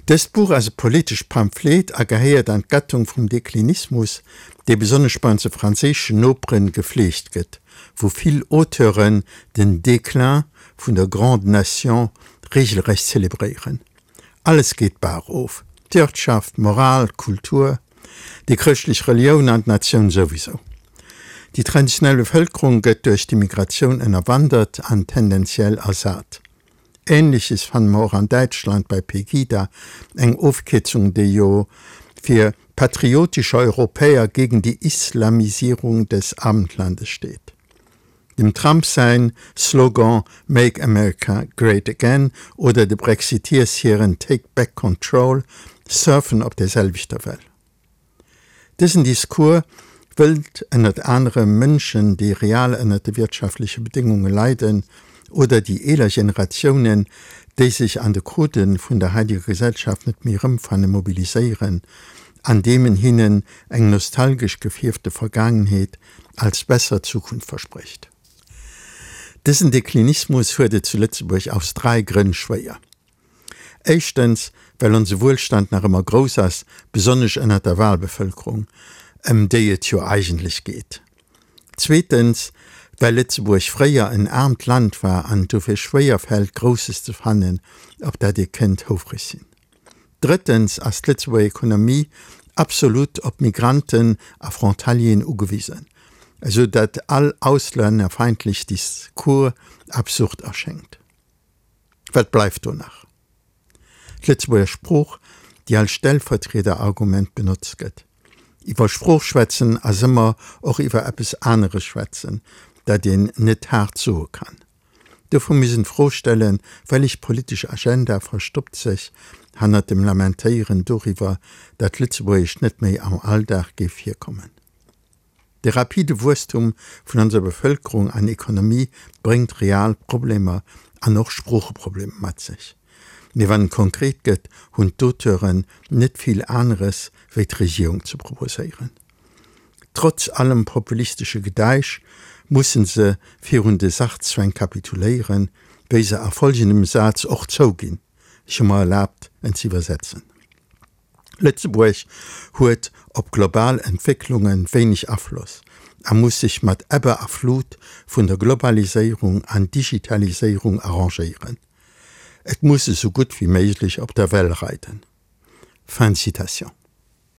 Dëst Buch ass e politescht Pamphlet a gehéiert an d'Gattung vum Deklinismus, dee besonnesch bei onse franséischen Noperen gefleegt gëtt, wou vill Auteuren den Déclin vun der Grande Nation regelrecht zelebréieren. Alles geet d'Baach of, d'Wirtschaft, d'Moral, d'Kultur, déi chrëschtlech Relioun an d'Natioun souwisou. Déi traditionell Bevëlkerung gëtt duerch d'Immigratioun ënnerwandert an tendenziell ersat. Ähnleches fanne mer och an Däitschland bei Pegida, eng Ofkierzung déi jo fir Patriotische Europäer gegen die Islamisierung des Abendlandes steet. Dem Trump säin Slogan Make America Great Again oder de Brexiteers hiren Take Back Control surfen op der selwechter Well. Dësen Discours wëllt ënnert anerem Mënschen, déi real ënnert de wirtschaftleche Bedéngunge leiden, oder déi eeler Generatiounen, déi sech an de Codë vun der haideger Gesellschaft net méi erëmfannen, mobiliséieren, andeem en hinnen eng nostalgesch gefierfte Vergaangenheet als besser Zukunft versprécht. Dësen Deklinismus huet et zu Lëtzebuerg aus drai Grënn schwéier. Éischtens, well onse Wuelstand nach ëmmer grouss ass, besonnesch ënnert der Wahlbevölkerung, ëm déi et jo eigentlech geet. Zweetens, well Lëtzebuerg fréier en aarmt Land war an et dofir schwéier fält, Grousses ze fannen, op dat ee kënnt houfreg sinn. Drëttens ass d'Lëtzebuerger Ekonomie absolut op Migranten a Frontalieren ugewisen, esou datt all auslännerfeindlech Discours absurd erschéngt. Wat bleift do nach? D'Lëtzebuerger Sprooch, déi als Stellvertriederargument benotzt gëtt. Iwwer Sprooch schwätzen ass ëmmer och iwwer eppes aneres schwätzen, dat een net haart soe kann. Dofir muss een d'Fro stellen, Wellech politesch Agenda verstoppt sech hannert dem Lamentéieren doriwwer, dat Lëtzebuergesch net méi am Alldag géif virkommen? De rapide Wuesstum vun onser Bevëlkerung an Ekonomie bréngt real Problemer an och Sproocheproblemer mat sech. Mee wann et konkret gëtt, hunn d'Auteuren net vill aneres wéi d'Regierung ze proposéieren. Trotz allem populistesche Gedäisch musse se virun de Sachzwäng kapituléieren, wéi se a folgendem Saz och zouginn, ech hu mer erlaabt en ze iwwersetzen. Lëtzebuerg huet op global Entwécklunge wéineg Afloss a muss sech mat Ebbe a Flut vun der Globaliséierung an Digitaliséierung arrangéieren. Et muss esou gutt wéi méiglech op der Well reiden. Fin de citation.